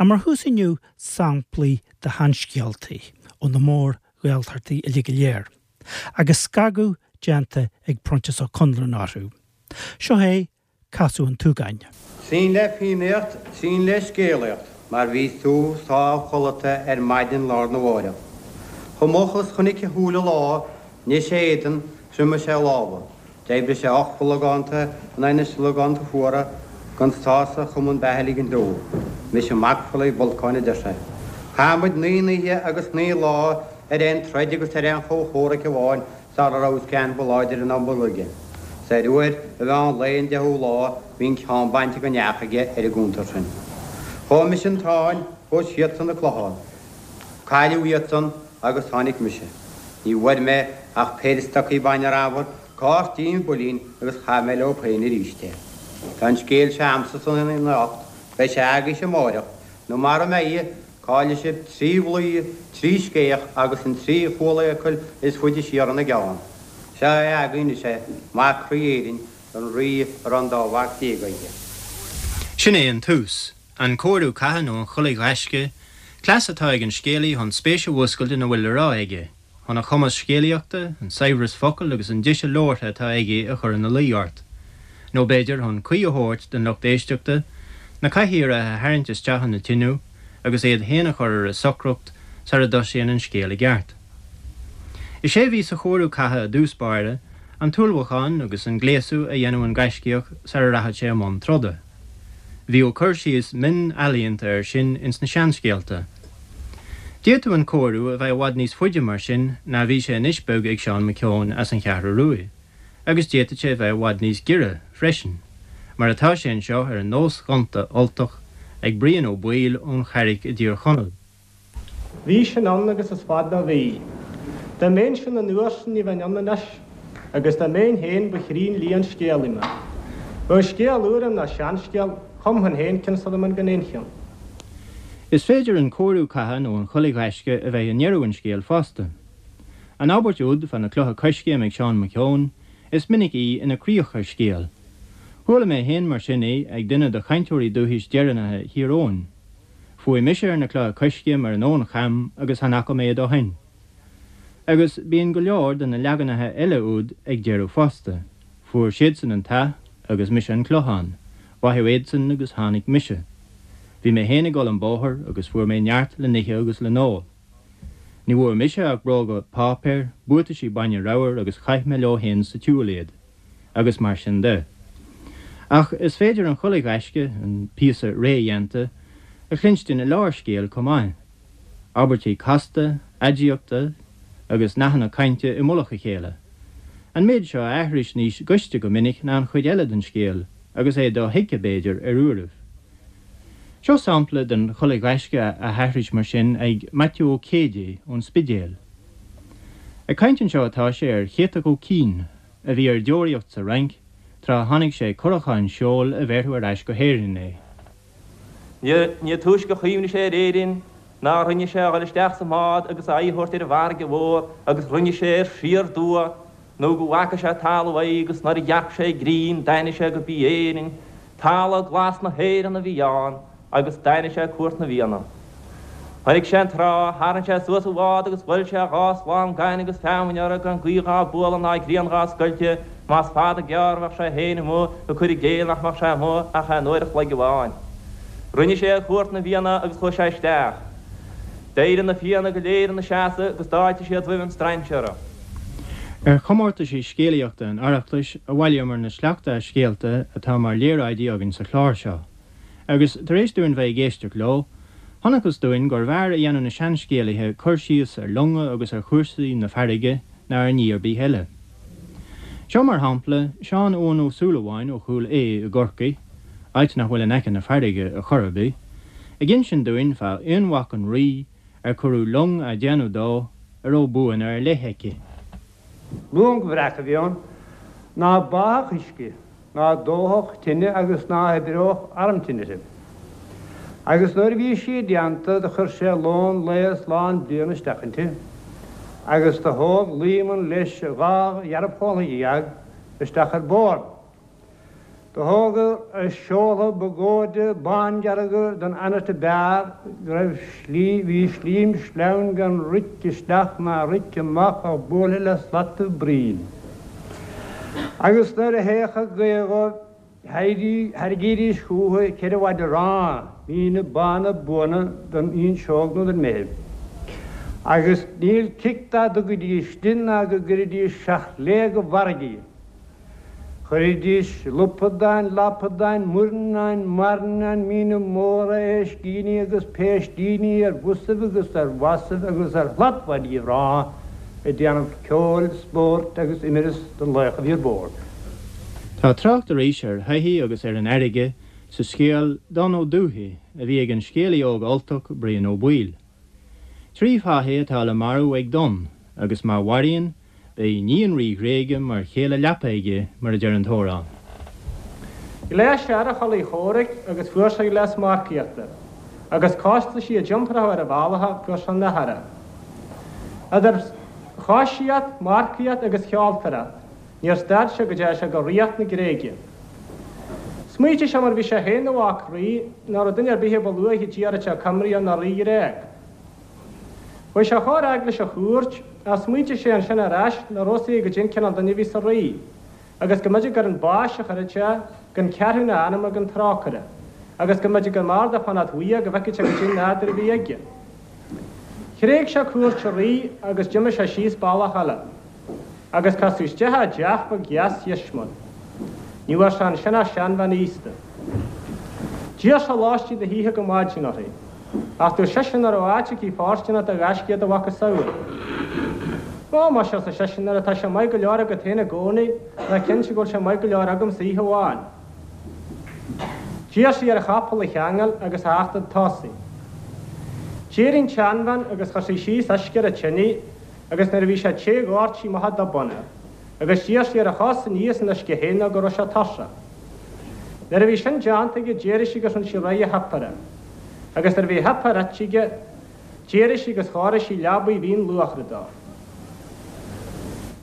Ach mar thús inniu samplaí de sheanscéaltaí ó na mór-Ghaeltachtaí uilig go léir, agus scagadh déanta ag Proinsias Ó Conluain orthu. Seo é Casadh an tSúgáin. Trín le Fiannaíocht, trín le Scéalaíocht, mar bhí sú sámh chodlata ar maidin lá arna mháireach. Chomh moch is chonaic a shúile lá, nigh sé a éadan, thriomaigh sé a lámha. D'oibrigh sé 8 logánta in aghaidh na slogánta fuara gan sásamh chum an beatha a ligint dó. Mise mac Pholaidh Bholcáin a deir sé. Chaith muid naoi n-oíche agus naoi lá ar aon troid agus ar aon chomhchomhrac amháin sara rabhas ceann ba láidre ná mo aige. 'S ar uair a mheán lae an deichiú lá bhí an ceann bainte den each aige ar an gcuntar sin. Chuaigh mise an Táin, chuaigh siadsan an Clochán. Cailleadh iadsan agus tháinig mise. Ní bhfuair mé ach péire stocaí bainne ramhar, cártín builín agus chaith mé leo féin arís é. Tá an scéal seo a'msa san anocht, beidh sé agaibhse amáireach, nó mara mbeidh, caillfidh sibh trí dhlaoi, trí scéach agus an trí chualfhiacail is faide siar ina gceann. Seo é agaibh anois é, mac Rí Éirinn, an Rí a raibh an dá mhac déag aige. Sin é an tús. An cóiriú catha nó an chulaith ghaisce, cleas atá ag an scéalaí chun spéis a mhúscailt ina bhfuil le rá aige, chun a chumas scéalaíochta, an saibhreas focal agus an deise labhartha atá aige a chur ina luí ort. Nó b'fhéidir chun caoi a thabhairt don lucht éisteachta, na cathaoireacha a tharraingt isteach ina dtinneall agus iad féin a chur ar a socracht sara dtosaíonn an scéal i gceart. Is é a bhí sa chóiriú catha i dtús báire, an t-ullmhúchán agus an gléasadh a dhéanadh an gaiscíoch sara rachadh sé i mbun troda. Bhíodh cur síos mion ealaíonta air sin ins na seanscéalta. D'fhéadfadh an cóiriú a bheith i bhfad níos faide mar sin ná bhí sé anois beag ag Seán Mac Eoin as an Cheathrú Ruaidh, agus d'fhéadfadh sé a bheith i bhfad níos giorra freisin, mar atá sé anseo ar an nós ghonta Ultach ag Brian Ó Baoill ón Charraic i dTír Chonaill. Bhí sin ann agus is fada ó bhí. Dá mbeinnse ann an uair sin ní bheinn ann anois, agus dá mbeinn féin ba chruinn liath an scéalaí mé. Bheadh scéal úr a'm ná seanscéal, chumfainn féin ceann sula mbeinn gan aon cheann. Is féidir an cóiriú catha nó an chulaith ghaisce a bheith i ndeireadh an scéil fosta. An abairt úd fá na clocha coiscéim ag Seán Mac Eoin, is minic í ina críoch ar scéal. Chuala mé féin mar sin í ag duine de chainteoirí dúchais deireanacha Thír Eoghain. Fuaigh mise ar na clocha coiscéim ar an abhainn cham agus chan fhaca mé iad ó shoin. Agus bíonn go leor de na leaganacha eile úd ag deireadh fosta, fuair siadsan an t-ath agus mise an clochán, báitheadh iadsan agus tháinig mise. Bhí mé féin ag dul an bóthar agus fuair mé neart le n-ithe agus le n-ól. Ní bhfuair mise ach bróga páipéir, buataisí bainne ramhar agus chaith mé leo féin sa tsiúl iad. Agus mar sin de. Ach is féidir an chulaith ghaisce, an píosa rédhéanta, a chluinstin i lár scéil chomh maith. Abairtí casta, aidiachta agus nathanna cainte i mullach a chéile. An méid seo a aithris níos gaiste go minic ná an chuid eile den scéal, agus é dothuigthe, b'fhéidir, ar uairibh. Seo sampla den chulaith ghaisce á haithris mar sin ag Maitiú Ó Céidigh ón Spidéal. Ag caint anseo atá sé ar Chéatach Ó Cinn, a bhí ar deoraíocht sa Fhrainc tráth a tháinig sé curachán seoil a bhéarfadh ar ais go hÉirinn é. Ní túisce a chuimhnigh sé ar Éirinn ná rinne sé a dhul isteach sa mbád agus a aghaidh a thabhairt ar an bhfarraige mhór agus rinne sé air siar aduaidh nó go bhfaca sé talamh aghaidh agus nuair a dhearc sé grian d'aithnigh sé go b'í Éirinn talamh glas na hÉireann a bhí ann agus d'aithnigh sé Cúirt na bhFianna. Chonaic sé an trá, tharraing sé suas a bhád agus bhuail sé dhá slám gainimh agus feamainne orthu gan gaoth dhá bualadh ná grian dhá scoilteadh, más fada gearr a bheadh sé féin amuigh ag cur i gcéill nach mbeadh sé amuigh ach aon uair a chloig amháin. Rinne sé ar Chúirt na bhFianna agus chuaigh sé isteach. D'éirigh na Fianna go léir ina seasamh agus d'fháiltigh siad roimh an strainséara. Ar chomórtaisí scéalaíochta an Oireachtais a bhailíomar na sleachta as scéalta atá mar léaráidí againn sa chlár seo. Agus tar éis dúinn bheith ag éisteacht leo, chonacthas dúinn gurbh fhearr a dhéanadh na seanscéalaithe cur síos ar longa agus ar chúrsaí na farraige ná ar ní ar bith eile. Seo, mar shampla, Seán Eoghan Ó Súilleabháin ó Chúil Aodha i gCorcaigh, áit nach bhfuil in aice na farraige ar chor ar bith, ag insint dúinn fá aonmhac an Rí ar cuireadh long á déanamh dó a raibh buanna ar leith aici. Long bhreac a bhí ann ná báfadh uisce, ná dófadh tine agus ná hoibreodh arm tine uirthi. Agus nuair a bhí sí déanta do chuir sé lón lae is lán bliana isteach inti, agus do thóg Luíomann leis a dhá dhearbhchomhaltha dhéag isteach ar bord. Do thógadar a seoltha ba gcóide bándearga don anait a b'fhearr go raibh slí, bhí slím sleamhain gan rith isteach ná rith amach ach buailthe le slataibh braoin. Agus nuair a théadh gaoth dhóibh thairgídís chúthu cheithre mhaide aráin, míne bána buana don fhuinseog nó don mbeithibh. Agus níl cic dá dtugaidís di ná go gcuiridís seacht léig i bhfarraige í. Chuiridís lupadáin, lapadáin, muirneáin, mairneáin, míne móra, éiscíní agus péistíní ar bhosaibh agus ar bhasaibh agus ar shlatmhaidí aráin ag déanamh ceoil, spóirt agus imreas don laoch a bhí ar bord. Tá trácht arís ar shoithí agus ar an fharraige sa scéal Donn Ó Dubhthaigh a bhí ag an scéalaí óg Ultach Brian Ó Baoill. Trí fathaigh atá le marú ag Donn agus má mharaíonn, Beidh iníon rí Ghréige mar chéile leapa aige, mar a deir an t-amhrán. Ghléas sé ar a chulaith chomhraic agus fuair sé gléas marcaíochta, agus cá is sí a d'iompródh ar a bhealach fuair sé an uirthi. Idir choisíocht, marcaíocht agus sheoltóireacht, níor stad sé go dteachaidh sé go ríocht na Gréige. Smaoitigh sé mar bhí sé féin ina mhac rí, nach raibh duine ar bith a ba luaithe d'iarraidh sé coimrí ná rí Ghréag. Chuaigh sé chomh fhad leis an chúirt, ach smaointigh sé ansin ar ais nach raibh fhios aige goidé an cineál duine a bhí sa rí, agus go mb'fhéidir gur chun báis a chuirfeadh sé, gan ceathrúna a anama gan trócaire, agus go mb'fhéidir gur mb'fhearr dó fanacht uaidh go bhfeicfeadh sé goidé an nádúr a bhí aige. Thréig sé cúirt an rí agus d'imigh sé síos bealach eile. Agus casadh isteach i dteach beag dheas dheismiúil. Ní bhfuair sé ansin ach seanbhean aosta. D'iarr sé lóistín na hoíche go maidin uirthi. Ach dúirt sise nach raibh áit aici fóirsteanach do ghaiscíoch de mhacasamhail. Ó, muise, arsa seisean, nuair atá sé maith go leor agat féin i gcónaí, ná cinnte go bhfuil sé maith go leor agamsa oíche amháin. D'iarr sí air a chapall a cheangal agus a theacht chun tosaigh. D'éirigh an tseanbhean agus chuir sí síos uisce ar an tine agus nuair a bhí sé te dhoirt sí amach an dubhán air, agus d'iarr sí air a chos a ní as an uisce féin nó go raibh sé tuirseach. Nuair a bhí sin déanta aige d'éirigh sí agus rinne sí réidh a shuipéar. Agus nuair a bhí a shuipéar ite aige, d'éirigh sí agus chóirigh sí leabaidh mhín luachra dó.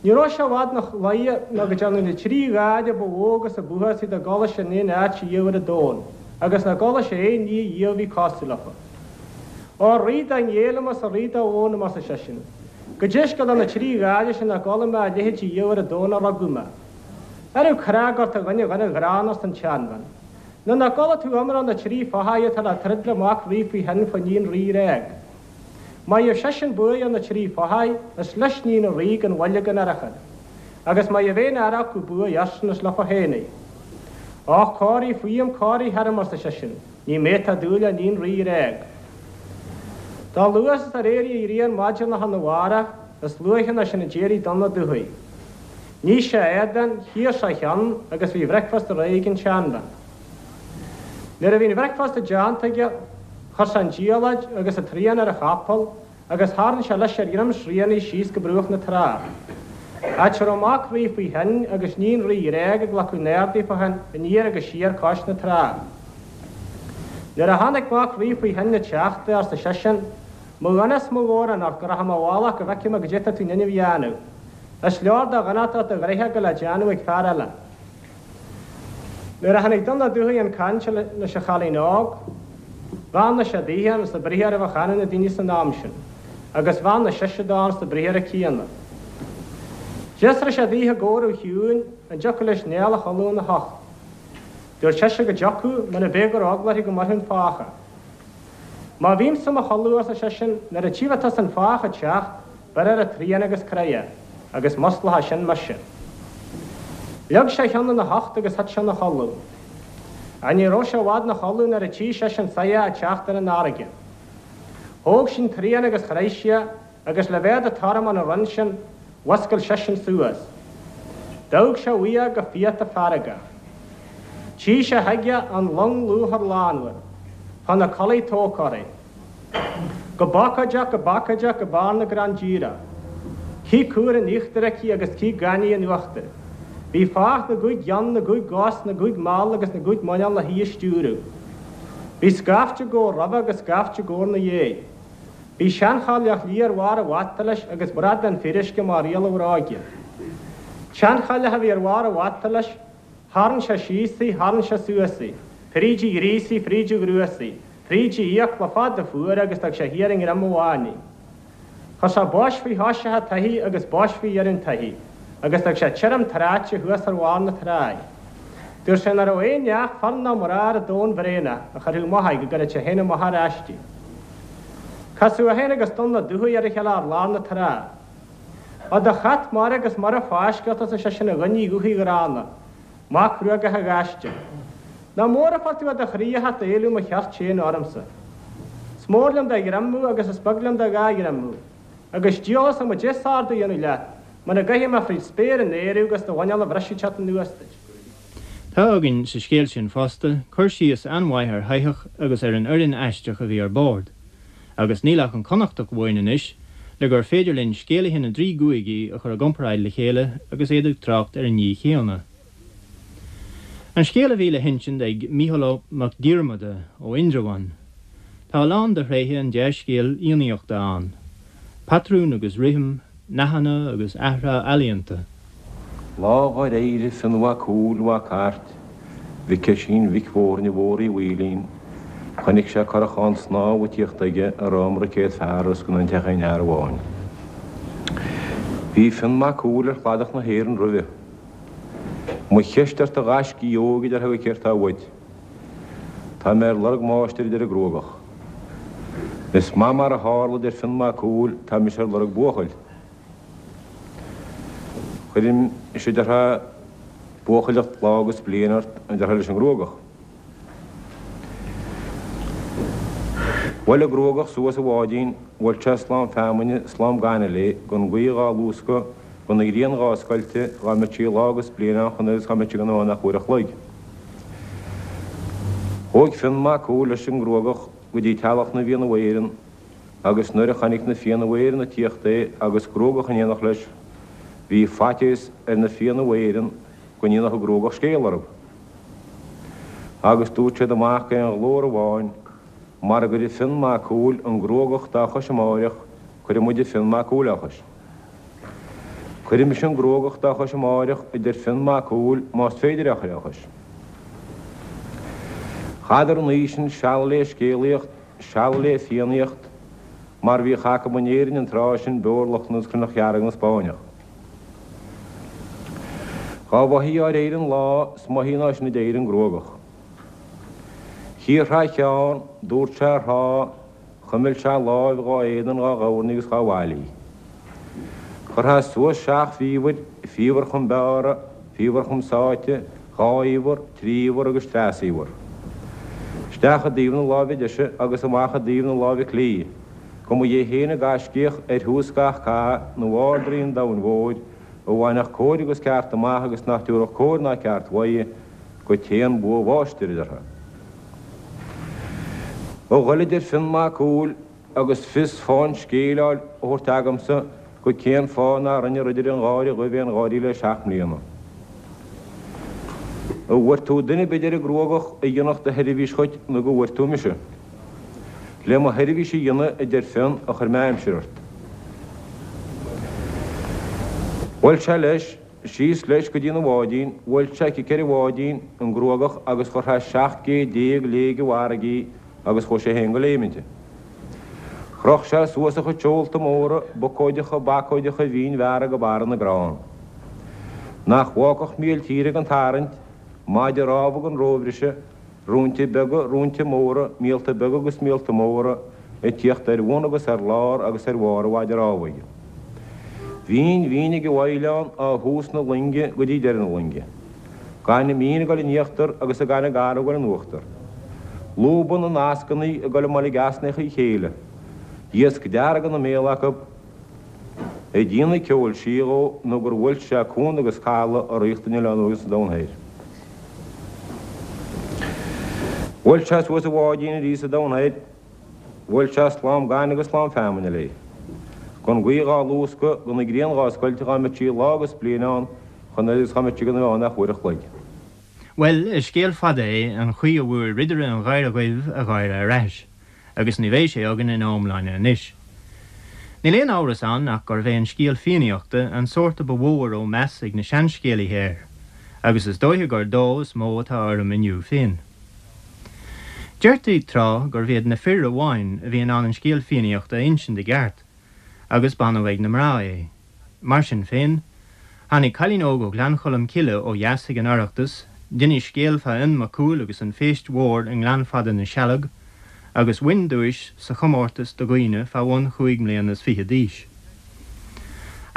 Ní raibh sé i bhfad 'na luighe nó go dtearnadh na trí gháire ba mhó agus a b'uafásaí dá gcuala sé in aon áit riamh ar an domhan, agus nach gcuala sé aon ní riamh a bhí cosúil leofa. Ó, a Rí dá ngéillfinn is a Rí dá bhfónaim, arsa seisean. Goidé scéal do na trí gháire sin nach gcuala mé a leithéid riamh ar an domhan ó rugadh mé. An raibh cnag ort a dhuine dhuine ghránna, arsa an tseanbhean. Nó nach gcuala tú iomrá na trí fathaigh atá le troid le mac rí faoi thoinn fá níon rí Ghréag. Má gheibh seisean buaidh ar na trí fathaigh, is leis níon an rí gan mhoill gan urchar. Agus má gheibh aon fhear acu buaidh airsean is leofa féin í. Och, corraigh fúm, corraigh tharam, arsa seisean. Ní mé atá ag dúil le níon rí Ghréag. Dá luaithe is ar éirigh an ghrian maidin lá arna mhárach, is luaithe ná sin a d'éirigh Donn Ó Dubhthaigh. Nigh sé a éadan, chíor sé a cheann agus bhí a bhricfeasta réidh ag an tseanbhean. Nuair a bhí an bhricfeasta déanta aige, chuir sé an diallait agus an tsrian ar a chapall agus tharraing sé leis ar dhroim srianaigh síos go bruach na trá, áit a raibh mac rí faoi thoinn agus níon rí Ghréag ag glacadh na n-ardaí fá thoinn aniar agus siar cois na trá. Nuair a chonaic mac rí faoi thoinn ag teacht é, arsa seisean, Mo dhuine is mo mhórán ort go rachaidh mé i bhfolach go bhfeicfidh mé goidé tá tú in ainm a dhéanamh. Is leor de dhonacht ort do ghnoithe a ghoil le déanamh ag fear eile. Nuair a tháinig Donn Ó Dubhthaigh chun cainte leis an chailín óg, bheannaigh sé daoithe ins an briathar a bheadh ionadh na daoine san am sin, agus bheannaigh sise dó ins an briathar céanna. D'fhiosraigh sé daoithe i gcomhaireamh chiúin an dtiocfadh leis Niall a chodladh ina hucht. Dúirt sise go dtiocfadh, mura b'é go raibh eagla uirthi go mbuailfeadh an fathach é. Má bhímse i mo chodladh, arsa seisean, nuair a tchífidh tusa an fathach ag teacht, beir ar an tsrian agus croith é, agus musclóidh sin mise. Leag sé a cheann ina hucht agus thit sé ina chodladh. Ach ní raibh sé i bhfad ina chodladh nuair a tchí seisean soitheach ag teacht ar an fharraige. Thóg sí an tsrian agus chroith sí é, agus le bheith de tormán an rinn sin, mhuscail seisean suas. D'amharc sé uaidh go fiata feargach. Tchí sé chuige an long luachair lánmhar, fá na culaith tógtha uirthi. Go bacóideach, go bacóideach, go barr na gcrann díreach. Cith cumhra in íochtar aici agus cith gainimh in uachtar. Bhí fathach na gcúig gceann, na gcúig gcos, na gcúig mall agus na gcúig muineál le hí a stiúradh. Bhí scaifte gabhar roimhe agus scaifte gabhar 'na dhéidh. Bhí seanchailleach liath ar bharr a bhata leis agus bradán fíoruisce mar riail a bhróige. Seanchailleach a bhí ar bharr a bhata leis. Tharraing sé síos í, tharraing sé suas í, fríd a ghríosaí, fríd a ghruasaí, fríd a fhiacla fada fuara agus d'fhág sé thiar i ngreim amháin í. Chuir sé bois faoi thoiseach an tsoithigh agus bois faoi dheireadh an tsoithigh, agus d'fhág sé tirim tráite thuas ar bharr na trá í. Dúirt sé nach raibh aon neach fear ná mná ar an domhan bhréanach a chuirfeadh amach í go gcuirfeadh sé féin amach ar ais í. Casadh é féin agus Donnchadh Dubhthaigh ar a chéile ar lár na trá. Ó do chat mara agus mura fáisceadh ort arsa seisean a dhuine dhubhthaigh ghránna, mac Ghruagacha ghaiste. Nach mór a fuair tú i do chroí a theacht a éileamh mo chirt féin ormsa. Is mór liom do ghreim thú agus is beag liom do dhá ghreim thú. Agus diabhal a fhios a'm goidé is ordú a dhéanamh leat, muna gcaithfidh mé fríd spéir in aer thú agus do mhuineál a bhriseadh ag teacht anuas duit. Tá againn sa scéal sin fosta cur síos an-mhaith ar shoitheach agus ar an fhoireann aisteach a bhí ar bord. Agus níl ach an Connachtach uainn anois le gur féidir linn scéalaithe na dtrí gcúigí a chur i gcomparáid le chéile agus iad ag trácht ar an ní chéanna. An scéal a bhí le hinsint ag Mícheál Ó Mac Diarmada ó Indreabhán. Tá a lán de thréithe an dea-scéil fhiannaíochta ann, patrún agus rithim, nathanna agus athrá ealaíonta. Lá dhár éirigh Fionn Mhac Cumhaill Mhac Airt Mhic Oisín Mhic Mhóirne Mhór Uí Mhaoilín, chonaic sé curachán snámha ag tíocht aige a raibh iomarca céad fear os cionn an t-aon fhear amháin. Bhí Fionn Mac Cumhaill ar chladach na hÉireann roimhe. Mo cheist ort a ghaiscígh óig a déarfá céard tá uait. Tá mé ar lorg máistir a deir an Gruagach. Is maith mar a tharla a deir Fionn Mac Cumhaill tá mise ar lorg buachaill. Cuirfidh mise a déarfá buachailleacht lá agus bliain ort a déarfá leis an nGruagach. Bhuail an Gruagach suas a bháidín, bhuail sé slám feamainne, slám gainimh léi, gan gaoth dhá luascadh, gan an ghrian dhá scoilteadh, dhá mbeadh sí lá agus bliain ann chun agus dhá mbeadh sí gan ann ach uair a chloig. Chuaigh Fionn Mac Cumhaill leis an nGruagach go dtí teallach na bhFianna Éireann agus nuair a chonaic na Fianna Éireann ag tíocht é agus Gruagach in éineacht leis, bhí faitíos ar na Fianna Éireann go ndéanfadh an Gruagach scéal orthu. Agus dúirt siad amach d'aon ghlór amháin, Mara gcuirfidh Fionn Mac Cumhaill an Gruagach dá chois amáireach, cuirfidh muide Fionn Mac Cumhaill á chois. Cuirfidh mise an Gruagach dá chois amáireach, a deir Fionn Mac Cumhaill, más féidir é a chur á chois. Chaitheadar an oíche sin seal lé scéalaíocht, seal lé fiannaíocht, mar bhíodh acu in Éirinn an tráth sin beoir Lochlann agus Cruithneacht Dhearg na Spáinneach. Dhá mhoithí ár éirigh an lá, is moithí ná sin a d'éirigh an Gruagach. Chíor thá cheann, dúirt sé ar thá, chuimil sé a láimh dhá éadan dhá dhoirn agus dhá mhailí. Chuir thá suas seacht bhfaobhair, faobhar chum beára, faobhar chum sáite, dhá fhaobhar, trí fhaobhar agus treasfhaobhar. Isteach i dtaobh na láimhe deise agus amach i dtaobh na láimhe clí, go mba é féin an gaiscíoch ar thús gach cath nó Ard-Rí an domhain mhóir, a bhainfeadh cóir agus ceart amach agus nach dtabharfadh cóir ná ceart uaidh go téann bua mháistir, a déarfá. A ghoil a deir Fionn Mac Cumhaill agus fios fáth an scéil á thabhairt agamsa go cén fáth nár rinne Ridire an Gháire Dhuibh aon gháirí le seacht mbliana. An bhfuair tú duine ar bith a deir an Gruagach a dhéanfadh do sheirbhís dhuit nó go bhfuair tú mise. Le mo sheirbhís a dhéanamh a deir Fionn a chuir mé aimsir ort. Bhuail sé leis, síos leis go dtína bháidín, bhuail sé cic ar an bháidín, an Gruagach, agus chuir sé 17 gcéad léig i bhfarraige í agus chuaigh sé féin go léim inti. Chroch sé suas a chuid seolta móra, bucóideacha, bacóideacha mhínfhearra go barra na gcrann. Nach bhfágfadh míol tíre gan tarraingt, maide rámha gan róbhriseadh, róinte beaga, róinte móra, míolta beaga agus míolta móra, ag tíocht ar bhun agus ar lár agus ar bharr an mhaide rámha aige. Bhínn mhín ag an bhfaighleán ó thús na loinge go dtí deireadh na loinge. Gaineamh mín ag dul in íochtar agus an gaineamh garbh ag dul in uachtar. Lúba na n-ascannaí ag dul i mboilg easnacha a chéile. Iasc dearg ina mbéal acu. Ag déanamh ceoil sí dhó nó gur bhuail sé cuan agus caladh a ríocht an Oileáin Uaigh sa Domhan Thoir. Bhuail sé suas a bháidín arís sa Domhan Thoir. Bhuail sé slám gainimh agus slám feamainne léi. Gan gaoth dhá luascadh, gan an ghrian dhá scoilteadh dhá mbeadh sí lá agus bliain ann chun agus dhá mbeadh sí gan a bheith ann ach uair a chloig. Bhuel, is scéal fada é an chaoi a bhfuair Ridire an Gháire Dhuibh a gháire ar ais, agus ní bheidh sé againn ina iomláine anois. Níl aon amhras ann ach gurbh é an scéal Fiannaíochta an sórt a ba mhó a raibh meas ag na seanscéalaithe air. Agus is dóiche gur dó is mó atá orm inniu féin. Deirtí tráth gurbh iad na fir amháin a bhí in ann an scéal Fiannaíochta a insint i gceart, agus b'annamh ag na mná é. Mar sin féin, tháinig cailín óg ó Ghleann Cholm Cille ó dheas ag an Oireachtas, d'inis scéal fá Fhionn Mac Cumhaill agus an phéist mhór i nGleann Fada na Sealg, agus bhain duais sa chomórtas do dhaoine fá bhun chúig mbliana is fichead d'aois.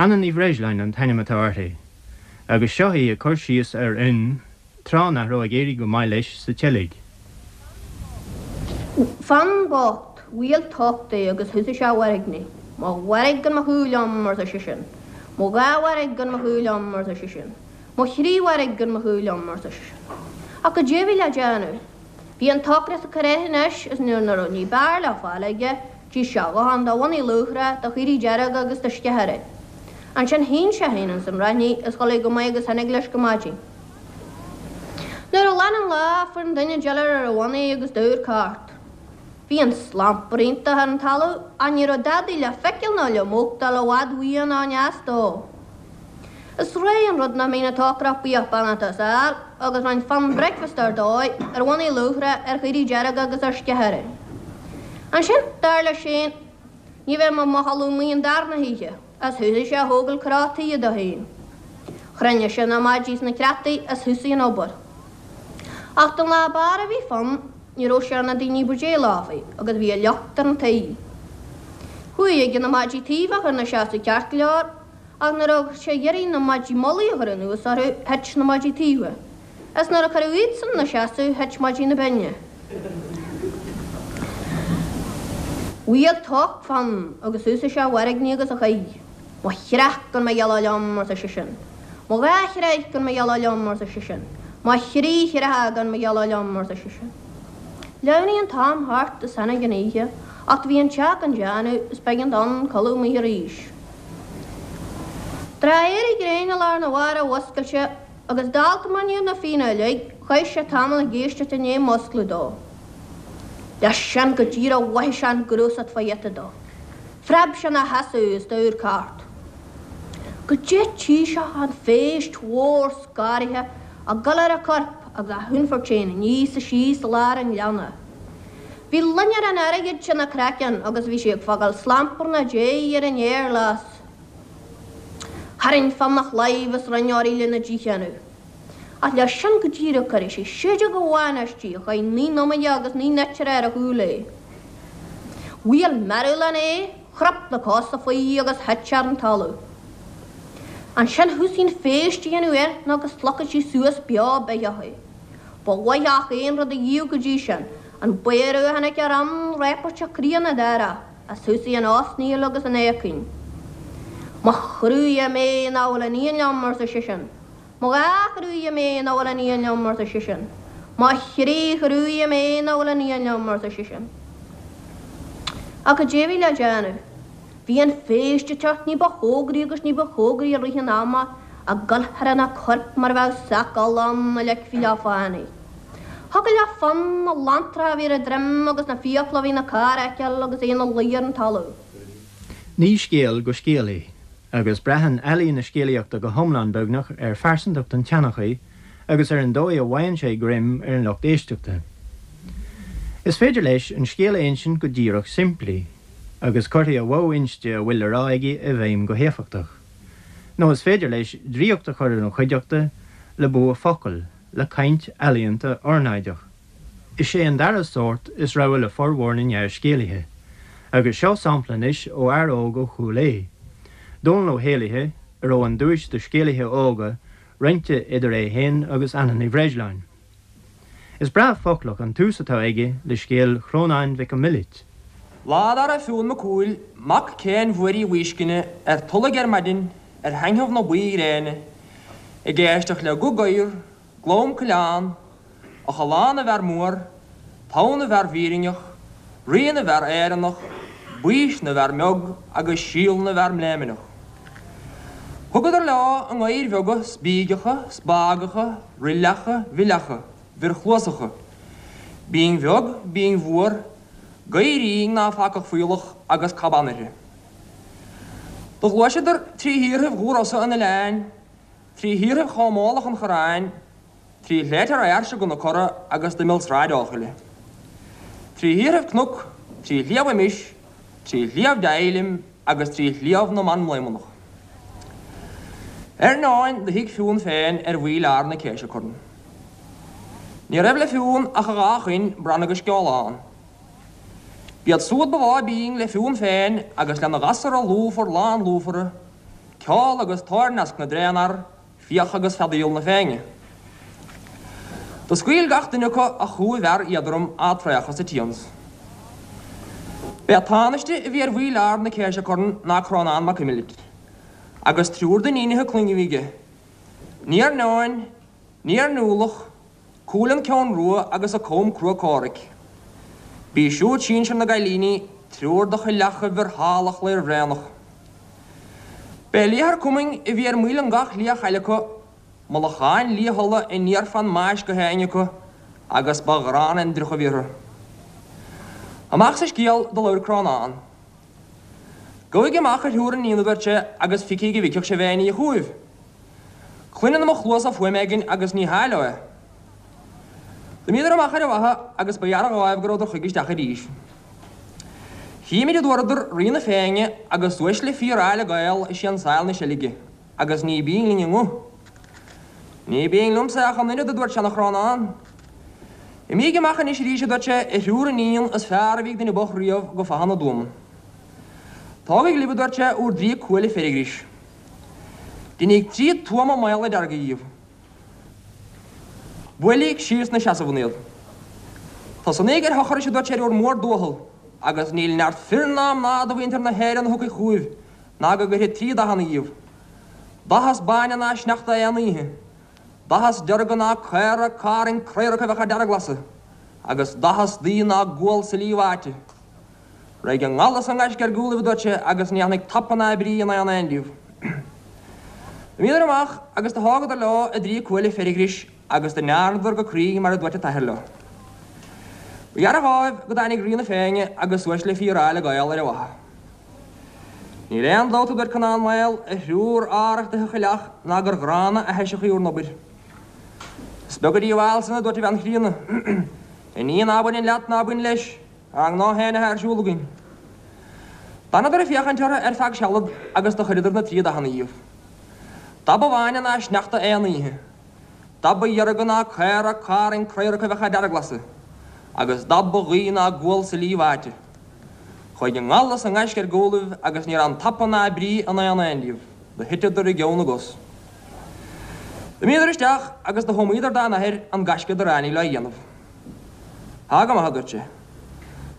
Anna Ní Bhreisleáin an t-ainm atá uirthi, agus seo í ag cur síos ar Fhionn tráth nach raibh ag éirí go maith leis sa tseilg. Fionn bocht, bhuail tocht é agus thosaigh sé a mhairgní. Mo mhairg gan mo shúil liom, arsa seisean. Mo dhá mhairg gan mo shúil liom, arsa seisean. Mo thrí mhairg gan mo shúil liom, arsa seisean. Ach goidé a bhí le déanamh? Bhí an t-ocras ag cur air anois is nuair nach raibh ní b'fhearr le fáil aige, d'ith sé a dhóthain de bhonnaí luachra, de chaoirigh dearga agus de sceithire. Ansin shín sé féin ins an raithnigh is chodlaigh go maith agus tháinig leis go maidin. Nuair a ghlan an lá, fuair an duine diolar ar a bhonnaí agus d'amharc thart. Bhí an slampar iontach ar an talamh ach ní raibh dadaidh le feiceáil ná le machtáil i bhfad uaidh ná i ndeas dó. Is réidh an rud nach mbíonn an t-ocrach buíoch beannacht as fhear agus rinn Fionn bricfeasta ar dóigh, ar bhonnaí luachra, ar chaoirigh dearga agus ar sceithire. Ansin, dar leis féin, ní bheidh mé i mo chodladh amuigh an darna hoíche. Is thosaigh sé a thógáil cró tuí dó féin. Chruinnigh sé na maidí is na creataí is thosaigh an obair. Ach don lá b'fhearr a bhí Fionn, ní raibh sé ar na daoine ba dé lámhaí agus bhí a locht ar an tuí. Chuaigh aige na maidí taoibh a chur 'na seasamh ceart go leor, ach nuair a bhí sé ag iarraidh na maidí mullaigh a chur anuas orthu, thit na maidí taoibhe. Is nuair a cuireadh iadsan 'na seasamh thit maidí na binne. Bhuail tocht Fionn agus thosaigh sé a mhairgní agus a chaoi. Mo chreach gan mo ghealladh liom, arsa seisean. Mo dhá chreach gan mo ghealladh liom, arsa seisean. Mo thrí chreacha gan mo ghealladh liom, arsa seisean. Shleamhnaigh an t-am thart is tháinig an oíche, ach do bhí an teach gan déanamh is b'éigean d'Fhionn codladh amuigh arís. Tráth éirí gréine lá arna mhárach mhuscail sé Agus dálta mar ní na Fianna uilig, chaith sé tamall ag éisteacht i ndiaidh muscladh dó. Leis sin go díreach mhothaigh sé an gnúsacht fá ghiota dó. Phreab sé ina sheasamh is d'amharc thart. Goidé tchí sé ach an phéist mhór scanraithe ag dul ar a corp agus á hionfairt féin aníos is síos i lár an ghleanna. Bhí loinnir an airgid ina craiceann agus bhí sí ag fágáil slamparna déidh ar an fhéar glas. Tharraing Fionn a chlaíomh is rinne uirthi lena dícheannadh. Ach leis sin go díreach cuireadh sé séideog amháin aisti a chaith 9 n-iomaire agus 9 n-eitire ar a chúl é. Bhuail mearbhlán é, chrap na cosa faoi agus thit sé ar an talamh. Ansin thosaigh an phéist a dhéanamh air nó go slogfadh sí suas beo beathach é. Ba mhaith gach aon rud a dhíobh go dtí sin, an bodhradh a chonaic ar Fhionn réapairteach críonna dáireach. Is thosaigh an osnaíl agus an éagaoin. Mo chroídhe mé nach bhfuil iníon liom, arsa seisean. Mo dhá chroídhe mé nach bhfuil iníon liom, arsa seisean. Mo thrí chroídhe mé nach bhfuil iníon liom, arsa seisean. Ach goidé a bhí le déanamh? Bhí an phéist ag teacht ní ba chóngaraí agus ní ba chóngaraí i rith an ama, ag dul thar ina corp mar a bheadh sac olla ann a leigfí le fánaidh. Thiocfadh le Fionn na lanntracha a bhí ar a droim agus na fiacla a bhí ina carr a fheiceáil agus é ina luí ar an talamh. Ní scéal go scéal é, agus braitheann ealaín na scéalaíochta go hiomlán beagnach ar phearsantacht an tseanchaí agus ar an dóigh a bhfaigheann sé greim ar an lucht éisteachta. Is féidir leis an scéal a insint go díreach simplí, agus cuirfidh a mhodh inste a bhfuil le rá aige i bhfeidhm go héifeachtach. Nó is féidir leis draíocht a chur ar an chuideachta le bua focal, le caint ealaíonta ornáideach. Is é an dara sórt is rogha le formhór na ngearrscéalaithe. Agus seo sampla anois ó fhear óg ó Chúil Aodha, Dónall Ó hÉalaithe, a raibh an duais do scéalaithe óga roinnte idir é féin agus Anna Ní Bhreisleáin. Is breá foclach an tús atá aige le scéal Chrónáin Mhic an Mhillit. Lá dá raibh Fionn Mac Cumhaill, mac Céin Mhuirí Mhuiscinne, ar Tulaigh ar maidin, ar thaitneamh na buí-ghréine, ag éisteacht le guth gadhar, glam coileán, Eochaill na bhfear mór, togha na bhfear bhfírinneach, rí na bhfear Éireannach, baois na bhfear mbeag agus síol na bhfear mbléimneach. Thugadar leo a ngadhair bheaga spígeacha, spágacha, roilleacha, mhilleacha, bhirchluasacha, binn bheag, binn mhór, gadhairín ná facadh fuíollach agus caban uirthi. Do ghluaiseadar trí thíorthaibh dhubh-rosa an oileáin. trí thíorthaibh Chomh Mólach an Chorráin, trí shléibhte Fheirse go na Cora agus d'imeall Sráid Eochaille. Trí thíorthaibh cnoc, trí Shliabh Imis, trí Shliabh Deighlim agus trí Shliabh na mBan Mblaomanach. Ar ndóin do shuigh Fionn féin ar mhaoil ard na Céise Corn. Ní raibh le Fionn ach a dhá choin, Bran agus Sceolán. B'iad súd ba mhó bínn le Fionn féin agus lena ghasura lúfar lán lúfara, ceol agus toirneasc na dtréanfhear, Fiach agus feadaíl na Féinne. Do scaoil gach duine acu a chú mhear éadrom á traochadh sa tsians. B'é an tánaiste a bhí ar mhaoil ard na Céise Corn ná Crónán Mac Imlirt, agus triúr d'iníonacha clainne a bhí aige, Níar Neoin, Níar Niúlach, Cualann Ceann Rua agus a Com Crua Comhraic. B'í siúd sinsir na gcailíní, triúr de choileacha mhiotalach Lairbhréanach. B'é Liathar Cumainn a bhí ar maoil an gach liath-chaille acu, mullacháin liath-fhola aniar fán mbais go héinne acu, agus ba ghránna an driuch a bhí orthu. Amach sa scéal do labhair Crónán. Gabhaigí amach a thriúr iníon a dúirt sé agus feicíg an bhfeicfeadh sibh aon ní chugaibh. Cluineann mo chluasa fuaim éigin agus ní hea leo é. D'imíodar amach ar an bhfaiche agus ba ghearr dhóibh go rabhadar chuige isteach arís. Chímid a dúradar Rí na Féinne agus uaisle fíor-áille Gael ag siansáil na seilge agus ní binn linn a nguth. Ní binn liomsa ach an oiread a dúirt seana-Chrónán. Imígí amach anois arís a dúirt sé, a thriúr iníon is fearr a bhí ag duine bocht riamh go Faiche na dTuamann. Tógaigí libh a dúirt sé, úr dtrí cuaille feirgris. Deiníg trí tuama maola dearga dhíobh. Buailíg síos 'na seasamh iad. Tosnaíg ar thochrais a dúirt sé ar bhur mórdúicheall agus níl neart fir ná mná de mhuintir na hÉireann a thiocfaidh chugaibh ná go gcuirfidh trí dathanna dhíobh. Dath is báine ná sneachta aon oíche, dath is dearga ná caora carn craoracha a bheadh á dearglasadh, agus dath is duibhe ná gual silí bháite. Raghaidh an ngal is an gaisce ar gcúlaibh, a dúirt sé, agus ní fhanfaidh tapa ná brí in aon aon díobh. D'imíodar amach agus do thógadar leo a dtrí cuaille feirghris agus do ndearnadar go cruinn mar a dúirt a t-athair leo. Ba ghearr dhóibh go dtáinig Rí na Féinne agus uaisle fíor-áille Gael ar an bhfaiche. Níl aon dabht, a dúirt Conán Maol, a thriúr arrachtaithe choileach ná gur ghránna aithiseach í bhur n-obair. Is beag an díobháil san, a dúirt a bhean chríonna. A ní ná baineann leat ná bain leis. Ár ngnó féin atá ar siúl againn. D'fhanadar ag féachaint orthu ar feadh sealad agus do chuireadar na trí dathanna dhíobh. Dath ba bháine ná sneachta aon oíche, dath ba dhearga ná caora carn craoracha a bheadh á dearglasadh, agus dath ba dhuibhe ná gual silí bháite. Chuaigh an ngal is an gaisce ar gcúlaibh agus ní raibh tapa ná brí in aon aon díobh, do thiteadar i gceann na gcos. D'imíodar isteach agus do thuamaíodar dá n-athair an gaisce dar éirigh leo a dhéanamh. Tá go maith, a dúirt sé.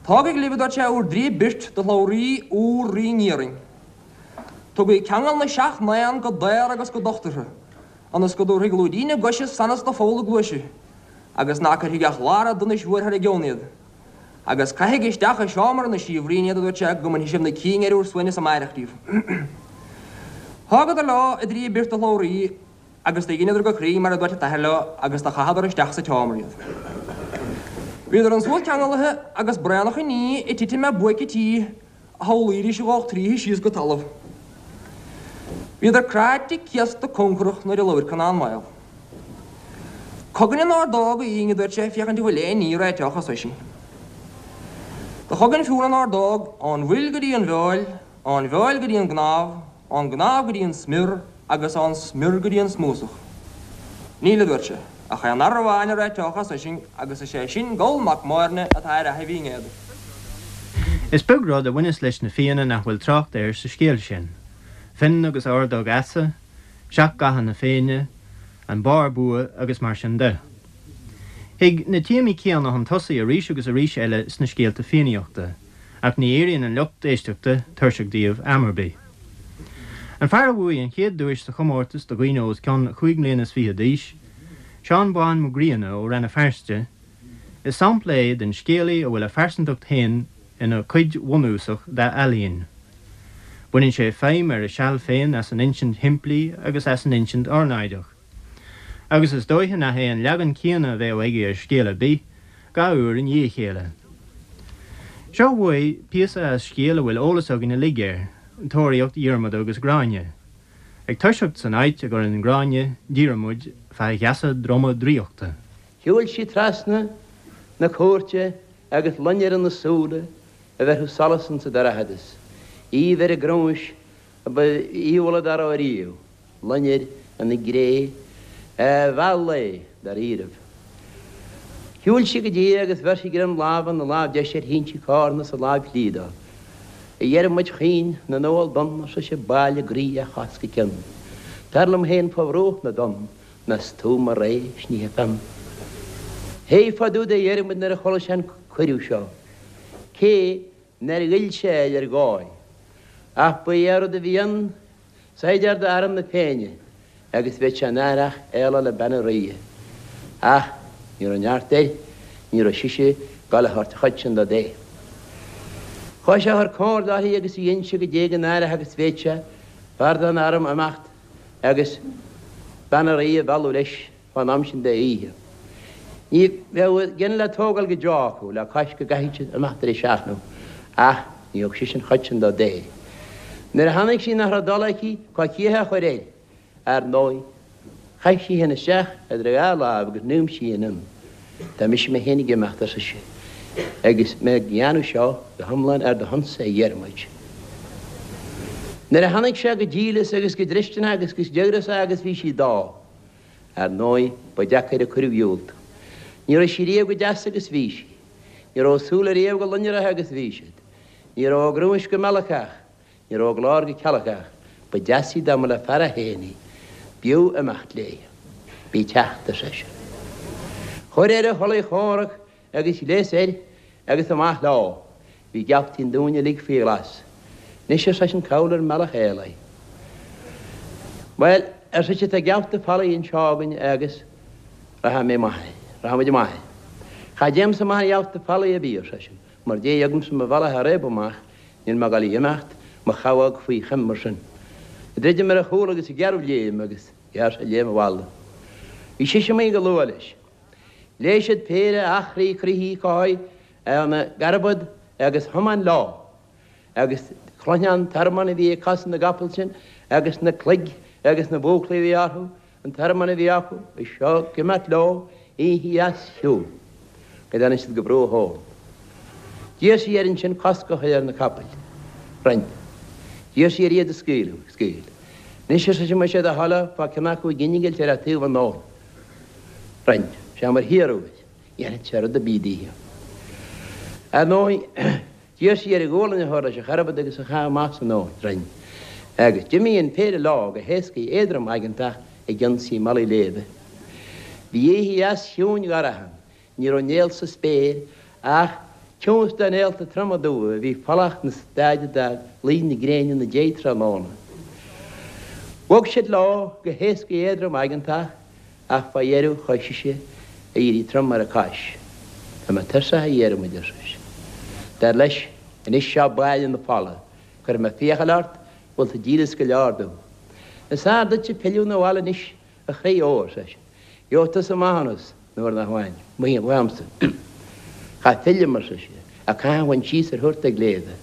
Tógaigí libh, a dúirt sé, úr dtrí birt de shlabhraí úr Rí nIarainn. Tugaigí ceangal na seacht n-éan go daor agus go docht orthu, ionas go dtabharfaidh lúidín a gcoise sonas do pholl a gcluaise, agus ná cuirfidh ach lár an donais mhóir thar a gceann iad. Agus caithigí isteach i seomra na síobhraíne iad, a dúirt sé, go mbainfidh sibh na cinn ar úr suaimhneas amáireach díobh. Thógadar leo a dtrí birt de shlabhraí Agus do dheineadar go cruinn mar a dúirt a t-athair leo agus do chaitheadar isteach sa tseomra iad. Bhíodar ansúd ceangalaithe agus braonach an ní ag titim ar buaic an tí a shamhlaídís a dhódh tríothu síos go talamh. Bhíodar cráite céasta conchrach nuair a labhair Conán Maol. Cogainn an ordóg, a Fhinn, a dúirt sé, féachaint an bhfuil aon ní a réiteodh as sinn. Do chogain Fionn an ordóg ón bhfuil go dtí an bhfeoil, ón bhfeoil go dtí an gcnámh, ón gcnámh go dtí an smior agus ón smior go dtí an smúsach. Níl, a dúirt sé, ach aon fhear amháin a réiteodh as sinn agus is é sin Goll Mac Móirne atá ar Fhaiche Bhinn Éadair. Is beag rud a bhaineas leis na Fianna nach bhfuil trácht air sa scéal sin, Fionn agus Ordóg Easa, Seacht gCatha na Féinne, an Barr Bua agus mar sin de. Thig na téamaí céanna chun tosaigh arís agus arís eile sna scéalta Fiannaíochta. ach ní éiríonn an lucht éisteachta tuirseach díobh am ar bith. An fear a bhuaigh an chéad duais sa chomórtas do dhaoine os cionn chúig mbliana is fiche d'aois, Seán Bán Mac Grianna ó Rann na Feirste, is sampla é den scéalaí a bhfuil a phearsantacht féin ina cuid bhunúsach dá ealaín. Baineann sé feidhm ar a seal féin as an insint shimplí agus as an insint ornáideach. Agus is dóiche nach é an leagan céanna a bheadh aige ar scéal ar bith, dhá uair i ndiaidh a chéile. Seo uaidh píosa as scéal a bhfuil eolas againn uilig air, Tóraíocht Dhiarmada agus Gráinne. Ag toiseacht san áit a gcuireann Gráinne Diarmuid fá gheasa droma draíochta. Shiúil sí trasna na cúirte agus loinnir ina súile a bheirfeadh solas insa dorchadas, aoibh ar a grúais a ba aoibhealla dá raibh ariamh, loinnir ina gré a mheall é dáiríribh. Shiúil sí go dtí é agus bheir sí greim láimhe na lámh deise ar shín sí cárna sa láimh chlí dó. A Dhiarmuid chaoin na n-umhal donn, ar sise, bail i gcroí ó chos go cionn. Tar liom féin fá bhruach na dtonn, ná 's tú mo ré 's ní theipfeam. Thuig fá dtaobh de Dhiarmuid nuair a chuala sé an cuireadh seo, cé nár ghoill sé air ar dhóigh. Ach ba é an rud a bhí ann, saighdeár d'arm na Féinne, agus bheadh sé náireach éaló le bean an ríghe. Ach ní raibh neart air, ní raibh sise ag gabháil a thabhairt an chuid sin dó de. Chuaidh sé a chur comhairle uirthi agus í innse goidé go náireach agus bhéad sé fear den arm imeacht agus bean an ríghe a mhealladh leis fán am sin de oíche. Ní bheadh a gceann le tógáil go deo acu le cois go gcaithfeadh siad imeacht ar a seachnadh, ach ní thug sise an chuid sin dó de. Nuair a chonaic sí nach raibh dul aici coicíoch a chur air, ar ndóigh, chaith sí féin isteach idir a dhá láimh agus n'fhuaim sí féin ann. Tá mise mé féin ag imeacht, ar sise, agus mé ag dhéanamh seo go hiomlán ar do shonsa, a Dhiarmuid. Nuair a chonaic sé go díleas agus go dlisteanach agus go díograiseach agus bhí sí dó, Ar ndóigh, ba deacair an cuireadh a dhiúltú. Ní raibh sí riamh chomh deas agus bhí sí. Ní raibh a súile riamh chomh loinnireach agus bhí siad. Ní raibh a grúais chomh meallacach. Ní raibh a glór chomh cealgach. Ba deas í dá mba le fear é féin í. B'fhiú imeacht léi. Bí ag teacht, ar seisean. Chuir air a chulaith chomhrac Agus ghléas air agus amach leo. Bhí geaftaí an dúin uilig faoi ghlas. Anois, ar seisean, cá bhfuil ár mbealach éalaithe? Bhuel, ar sise, tá geafta folaigh anseo againn agus rachaidh mé amach air. Rachaidh muid amach air. Cha dtéimse amach ar gheafta folaigh ar bith, ar seisean, mar dtéigh agamsa mo bhealach a réabadh amach, níl mé ag dul a imeacht mo chabhóg faoi choim mar sin. Druidim ar a chúl agus gearradh léim agus ghearr sé léim abhaile. Bhí sise amuigh go luath leis. Léigh siad péire eachraí croithí cothai ina gcarbad agus thiomáin leo, agus chluinfeá an tormán a bhí ag cosa na gcapall sin agus na cloig agus na búclaí a bhí orthu, an tormán a bhí acu, is seo ag imeacht leo oíche dheas chiúin go dtáinig siad go bruach abhann. D'iarr sí air ansin cosc a chur ar na capaill. Rinn. D'iarr sí air iad a scaoileadh. Scaoil. Anois, ar sise, más é do thoil é, fág ceann acu ag innilt ar a' taobh an abhainn. Rinn sé mar hiarradh air. Dhéanfadh sé rud ar bith daoithe. Ar ndóigh, d'iarr sí air a ghualainn a chur leis an charbad agus a chaitheamh amach san abhainn. Rinn. Agus d'imigh an péire leo go héascaidh éadrom aigeantach ag ionsaí malaí léibhe. Bhí oíche dheas chiúin dhorcha ann. Ní raibh néal sa spéir ach ciumhais de néalta troma dubha a bhí folach 'na staid de luí na gréine 'na déidh tráthnóna. Bhog siad leo go héascaidh éadrom aigeantach ach fá dheireadh chuaigh sise a éirí trom ar a cois. Tá mé tuirseach a Dhiarmuid, ar sise. Dar leis, anois seo baile na fola, cuirfidh mé fiacail ort, bhfuil tú díleas go leor domh. Is fearr duitse pilleadh 'na bhaile anois A chroí óir, ar seisean, gheobhaidh tusa maithiúnas nuair nach bhfaighinn uaimse. Cha phillim, ar sise, ach caithfidh bhaint síos ar thuarta gléibhe.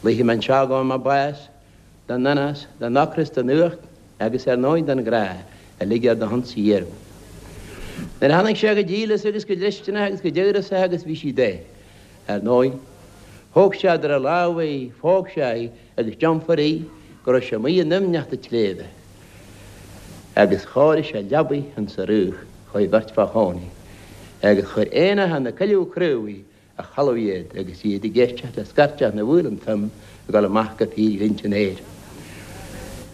Luífidh mé anseo go bhfaighidh mé bás den anás, den ocras, den fhuacht agus ar ndóigh den ghrá, uilig ar do shonsa a Dhiarmuid. Nuair a chonaic sé go díleas agus go dlisteanach agus go díograiseach agus bhí sí dó, ar ndóigh, thóg sé idir a lámha í, phóg sé í agus d'iompair í go raibh sé amuigh i ndoimhneacht an tsléibhe. Agus chóirigh sé leabaidh insa fhraoch dhóibh beirt fá chónaí, agus chuir éanacha na coilleadh craobhaí a chodladh iad, agus iad ag éisteacht le scairteach na bhfaoileán fionn ag dul amach go fíorghlinnte an aeir.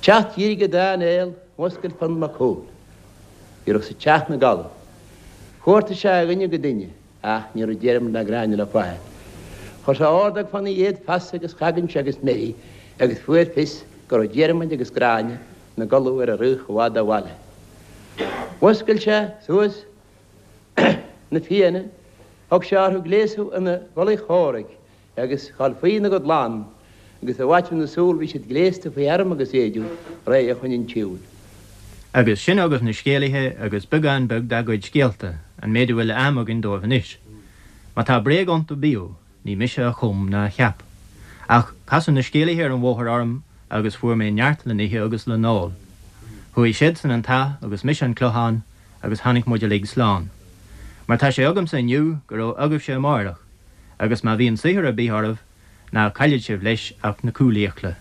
Teacht dhírigh an dá néal, mhuscail Fionn Mac Cumhaill. Ní raibh sa teach 'na gcodladh. Chuartaigh sé ó dhuine go duine. Ach ní raibh Diarmaid ná Gráinne le fáil. Chuir sé ordóg fána dhéad feasa agus chagaint agus meidhrí agus fuair fios go raibh Diarmaid agus Gráinne 'na gcodladh ar an fhraoch i bhfad ó bhaile. Mhuscail sé suas na Fianna, thug sé orthu gléasadh ina gculaith chomhraic agus ghabháil faoi ina gcuid lann, agus i bhfaiteadh na súl bhí siad gléasta faoi arm agus éideadh, réidh chun an tsiúil. Agus sin agaibh na scéalaithe agus beagán beag dá gcuid scéalta, an méid a bhfuil am againn dóibh anois. Má tá bréag iontu bíodh, ní mise a chum ná a cheap. Ach casadh na scéalaithe ar an bhóthar orm agus fuair mé neart le n-ithe agus le n-ól. Chuaigh siadsan an t-áth agus mise an Clochán agus tháinig muid uilig slán. Mar tá sé agamsa inniu go raibh agaibhse amáireach, agus má bhíonn saothar ar bith oraibh, ná caillfidh sibh leis ach na cúlfhiacla.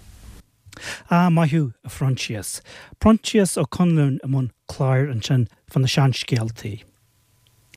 Ah, maith thú, a Phroinsias. Proinsias Ó Conluain i mbun cláir ansin fá na seanscéaltaí.